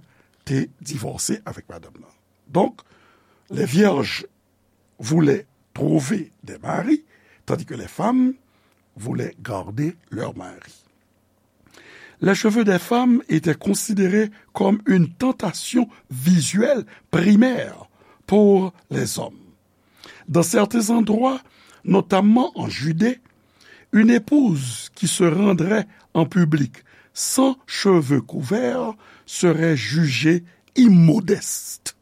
te divòse avèk madanm nan. Donc, les vierges voulaient trouver des maris, tandis que les femmes voulaient garder leur mari. Les cheveux des femmes étaient considérés comme une tentation visuelle primaire pour les hommes. Dans certains endroits, notamment en Judée, une épouse qui se rendrait en public sans cheveux couverts serait jugée immodeste,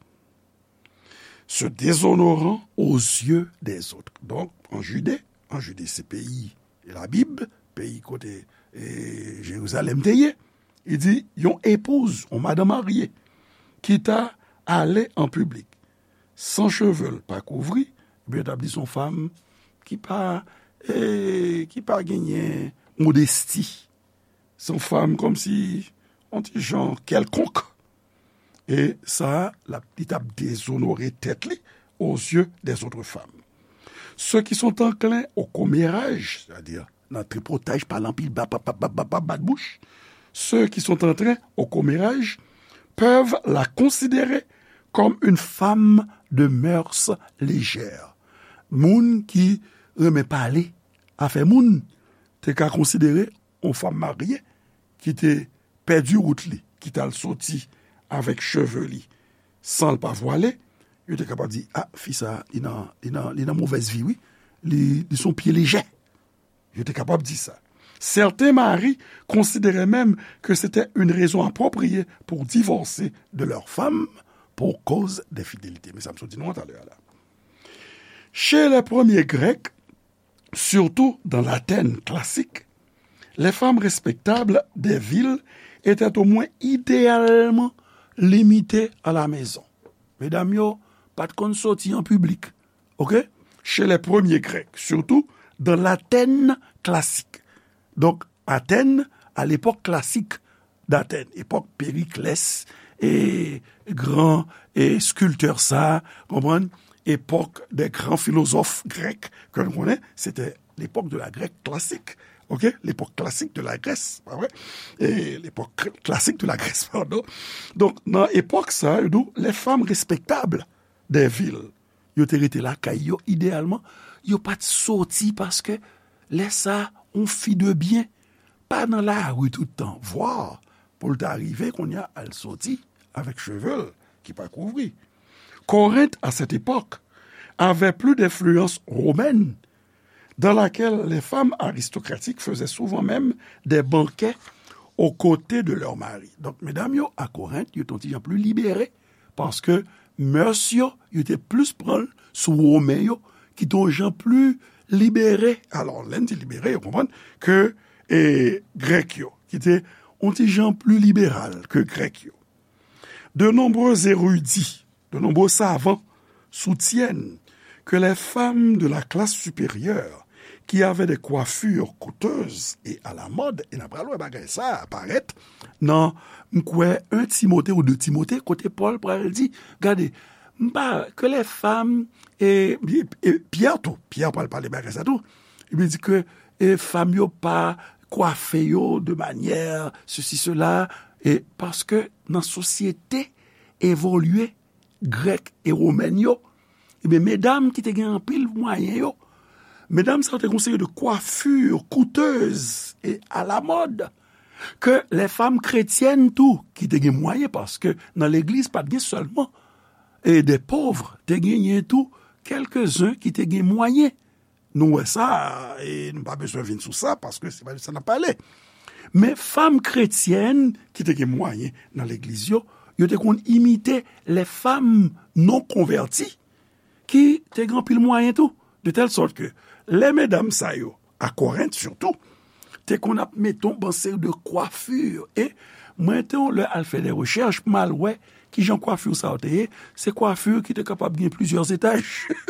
se déshonorant aux yeux des autres. Donk, an Jide, an Jide se peyi Labib, peyi kote, e, Jerizalèm te ye, li di, yon epouz, yon madanm marye, ki ta ale an piblik, san cheve l pa kouvri, ebyen, yo t ap di se yon fanm ki pa, e, ki pa genyen modesti. Se yon fanm kòmsi, yon ti jan kèlkonk. E sa, l ap, li t ap dezonore tèt li aux yeux des autres femmes. Ceux qui sont enclins au commérage, c'est-à-dire nan tripotaj, pale anpil, bat, bat, bat, bat, bat, bat, bat bouch, ceux qui sont enclins au commérage peuvent la considérer comme une femme de mœurs légères. Moun ki renmen pale afè moun te ka konsidere yon fanm marye ki te pèdi wout li, ki t al soti avèk cheve li san l pa vwale, Yo te kapab di, a, fi sa, li nan, li nan, li nan movèz vi, wi. Li, li se yon pye lejè. Yo te kapab di sa. Certains maris considéraient même que c'était une raison appropriée pour divorcer de leur femme pour cause d'infidélité. Men sa m sot di nou an talè a la. Chez les premiers Grecs, surtout dans l'Athènes classique, les femmes respectables des villes étaient au moins idéalement limitées à la maison. Medam yo pa t konn soti an piblik. OK? Chez les premiers Grecs, surtout dans l'Athènes classique. Donk, Athènes, à l'époque classique d'Athènes, epòk Périclès, e gran e skiltè sa, konprann? Epòk des grands philosophes grecs, ke nou konnen, se te l'époque de la Grèce classique. OK? L'époque classique de la Grèce, pa vre? E l'époque classique de la Grèce, pardon. Donk, nan epòk sa, yo di w, les femmes respectables des villes, yo te rete lakay yo, ideyalman, yo pa t soti paske lè sa, yon fi de byen pa nan lari tout tan, vwa pou l ta rive kounye a al soti avèk cheve l ki pa kouvri. Corinthe, à cette époque, avait plus d'influence romaine, dans laquelle les femmes aristocratiques faisaient souvent même des banquets aux côtés de leur mari. Donk, medam yo a Korent, yo t on ti jan pli libere, paske mœurs yo, yo te plis pran l sou Women yo, ki te on jan pli libere. Alò, lè n di libere, yo konprann ke, e, Grèk yo, ki te on ti jan pli liberal ke Grèk yo. De nombreux érudits, de nombreux savants soutiennent que les femmes de la classe supérieure qui avaient des coiffures coûteuses et à la mode, e n a pral wè bagay sa a parèt nan, m kwè, un Timote ou deux Timote, kote Pòl pral di, gade, m pa, que les femmes, e, e, e Pyè tou, Pyè pral pale bagay sa tou, li di ke, e, fanm yo pa kwafe yo de manyè sesi, sela, e paske nan sosyete evolye grèk e womèn yo, ebyen, medam ki te gen anpil mwayen yo, medam sa yo te gen yon seri de coiffures coûteuses et à la mode, ke les femmes chrétiennes tou, ki te gen mwayen, paske nan legliz, pa t gen sèlman, e, des pauvres, te genyen tou kèlkezen ki te gen mwayen. Nou wè sa, e nou pa bezwen vin sou sa, paske se pa de sa n ap pale. Men fanm kretyèn ki te gen mwayen nan legliz yo, yo te konn imite les femmes non converties ki te gen anpil mwayen tou. De tèl sòt ke lè medam sa yo, a Korent sitou, te konn ap mete yon bon seri de coiffures. E mwen te yon lè al fè de rechèch pou m al wè kijan kwafi sa yo te ye. Se kwafi ki te kapab gen plizyè etaj.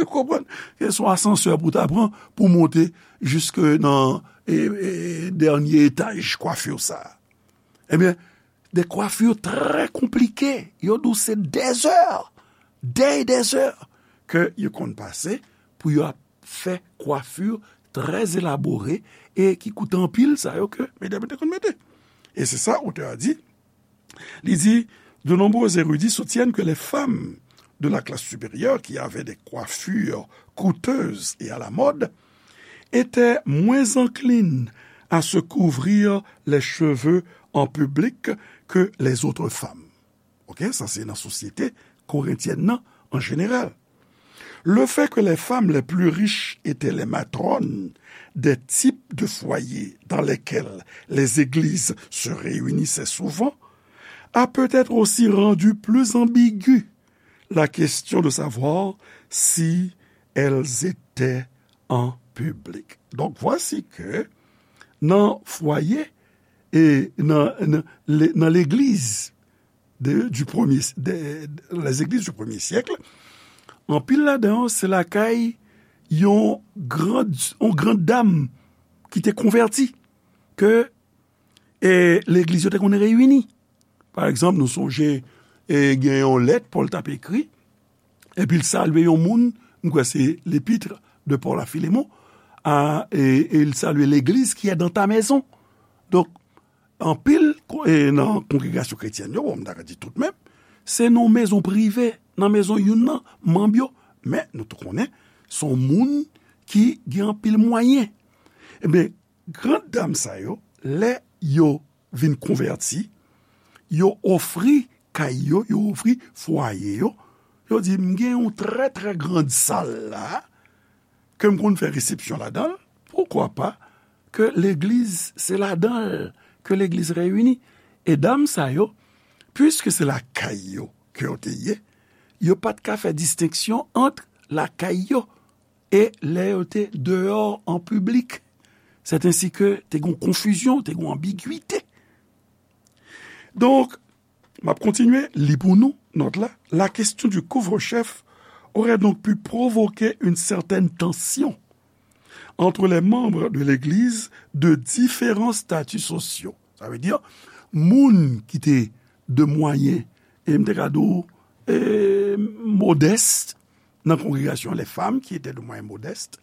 Ou konprann? Se yon asansè pou w ta pran pou w monte jiske nan, e, e, dènye etaj kwafi sa. Ebyen, de coiffures très compliquées. Yo di w se des heures, des, des heures ke yo konn pase pou yo ap fè coiffures très élaborées e ki koute anpil, sa yo ke medam yo te konn mete. E se sa otè a di. Li di, de nombreux érudits soutiennent que les femmes de la classe supérieure qui avaient des coiffures coûteuses et à la mode étaient moins enclines à se couvrir les cheveux en public que les autres femmes. OK, sa se nan sosyete korentyèn nan an jeneral. Le fait que les femmes les plus riches étaient les matrones des types de foyers dans lesquels les églises se réunissaient souvent a peut-être aussi rendu plus ambiguë la question de savoir si elles étaient en public. Donc voici que nan fwaye e nan, nan, le- nan legliz de, du premier, de, les églises du premier siècle, anpil ladan yo se lakay yon grand, yon grand dam ki te konvèti, ke, e, legliz yo te konn reyini. Pa egzanp, nou sonje, e, gen yon lèt Pòl t ap ekri, epi l salye yon moun, m kwè se l'épître de Paul à Philémon, a, e, e l salye l'église qui est dans ta maison. Donk, anpil ko- e nan kongregasyon kretyèn yo, bon, m ta ka di tout menm, se nan mezon prive, nan mezon youn nan manm yo, men nou tou konnen, se yon moun ki gen anpil mwayen. Ebyen, grand dam sa yo, lè yo vin konvèti, yo ofri kay yo, yo ofri fwaye yo, Yo di, "M gen yon trè, trè grand sal la, ke m konn fè resepsyon ladan l, poukwa pa ke legliz, se ladan l ke legliz reyini?" E dam sa yo, piske se lakay yo ke yo te ye, yo pa t ka fè distenksyon ant lakay yo e lè yo te deyò an piblik. Sèt ensi ke te gen yon konfizyon, te gen yon anbigwite. Donk, m ap kontinye li pou nou nòt la. La question du couvre-chef aurait donc pu provoquer une certaine tension entre les membres de l'Église de différents statuts sociaux. Sa vle di, moun ki te de mwayen, e m te ka di w, e, modès nan kongregasyon, les femmes qui étaient de moyens modestes,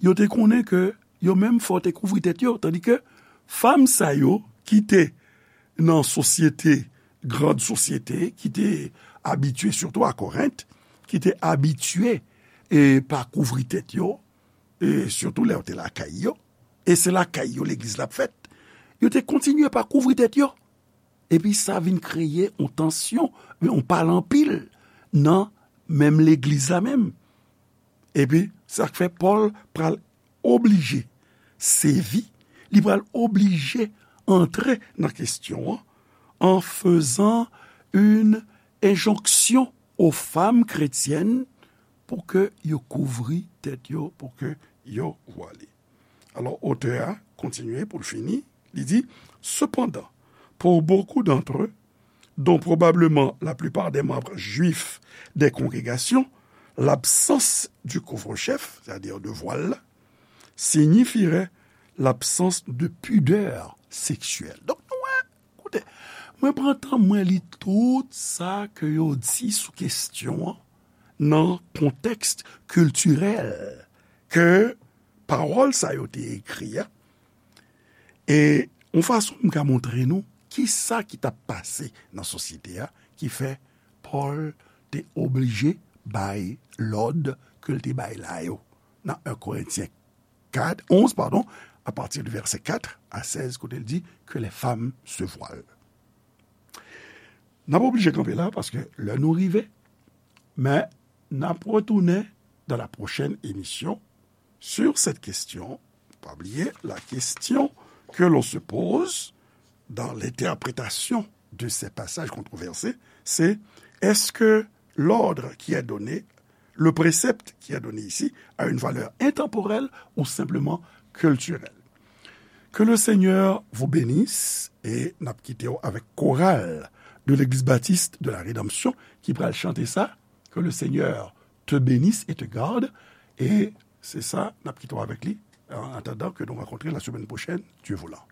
yo te konnen ke yo menm fò te kouvri tèt yo, tandi ke fanm sa yo ki te nan sosyete, grand sosyete, ki te abitye, sitou a Korent, ki te abitye e pa kouvri tèt yo, e sitou lè yo te lakay yo, e se lakay yo legliz la ap fèt, yo te kontinye pa kouvri tèt yo. Epi sa vin kreye yon tansyon, yon pale anpil nan menm legliz la menm. Epi sa k fè Pòl pral oblije sèvi, li pral oblije antre nan kesyon an, an fezan yon enjonksyon o fanm kretyèn pou ke yo kouvri tèt yo, pou ke yo vwale. Alò, otè a kontinye pou l fini, li di, cependant, pour beaucoup d'entre eux, dont probablement la plupart des membres juifs des congrégations, l'absence du couvre-chef, c'est-à-dire de voile, signifierait l'absence de pudeur sexuelle. Donk, nou wè, koute, mwen pran tan mwen li tout sa ke yo di sou kesyon an nan kontèks kiltirèl ke pawòl sa yo te ekri a, e yon fason m ka montre nou ki sa ki t ap pase nan sosyete a, ki fè Pòl te oblije bay lòd ke l te bay la yo nan en Korentyen kat, onz, pardon, à partir du verset quatre à seize, kote l di que les femmes se voilent. N ap oblije kanpe la, paske lè nou rive, men n ap retounen dans la prochaine émission sur cette question. Pa bliye, la question que l'on se pose dans l'interprétation de ces passages controversés, c'est est-ce que l'ordre qui est donné, le précepte qui est donné ici, a une valeur intemporelle ou simplement culturelle? Que le Seigneur vous bénisse, e n ap kite w avèk koral de l'Église Baptiste de la Rédemption ki pral chante sa, Que le Seigneur te bénisse et te garde, e se sa, n ap kite w avèk li. En attendant que nous rencontrions la semaine prochaine, Dieu voulant.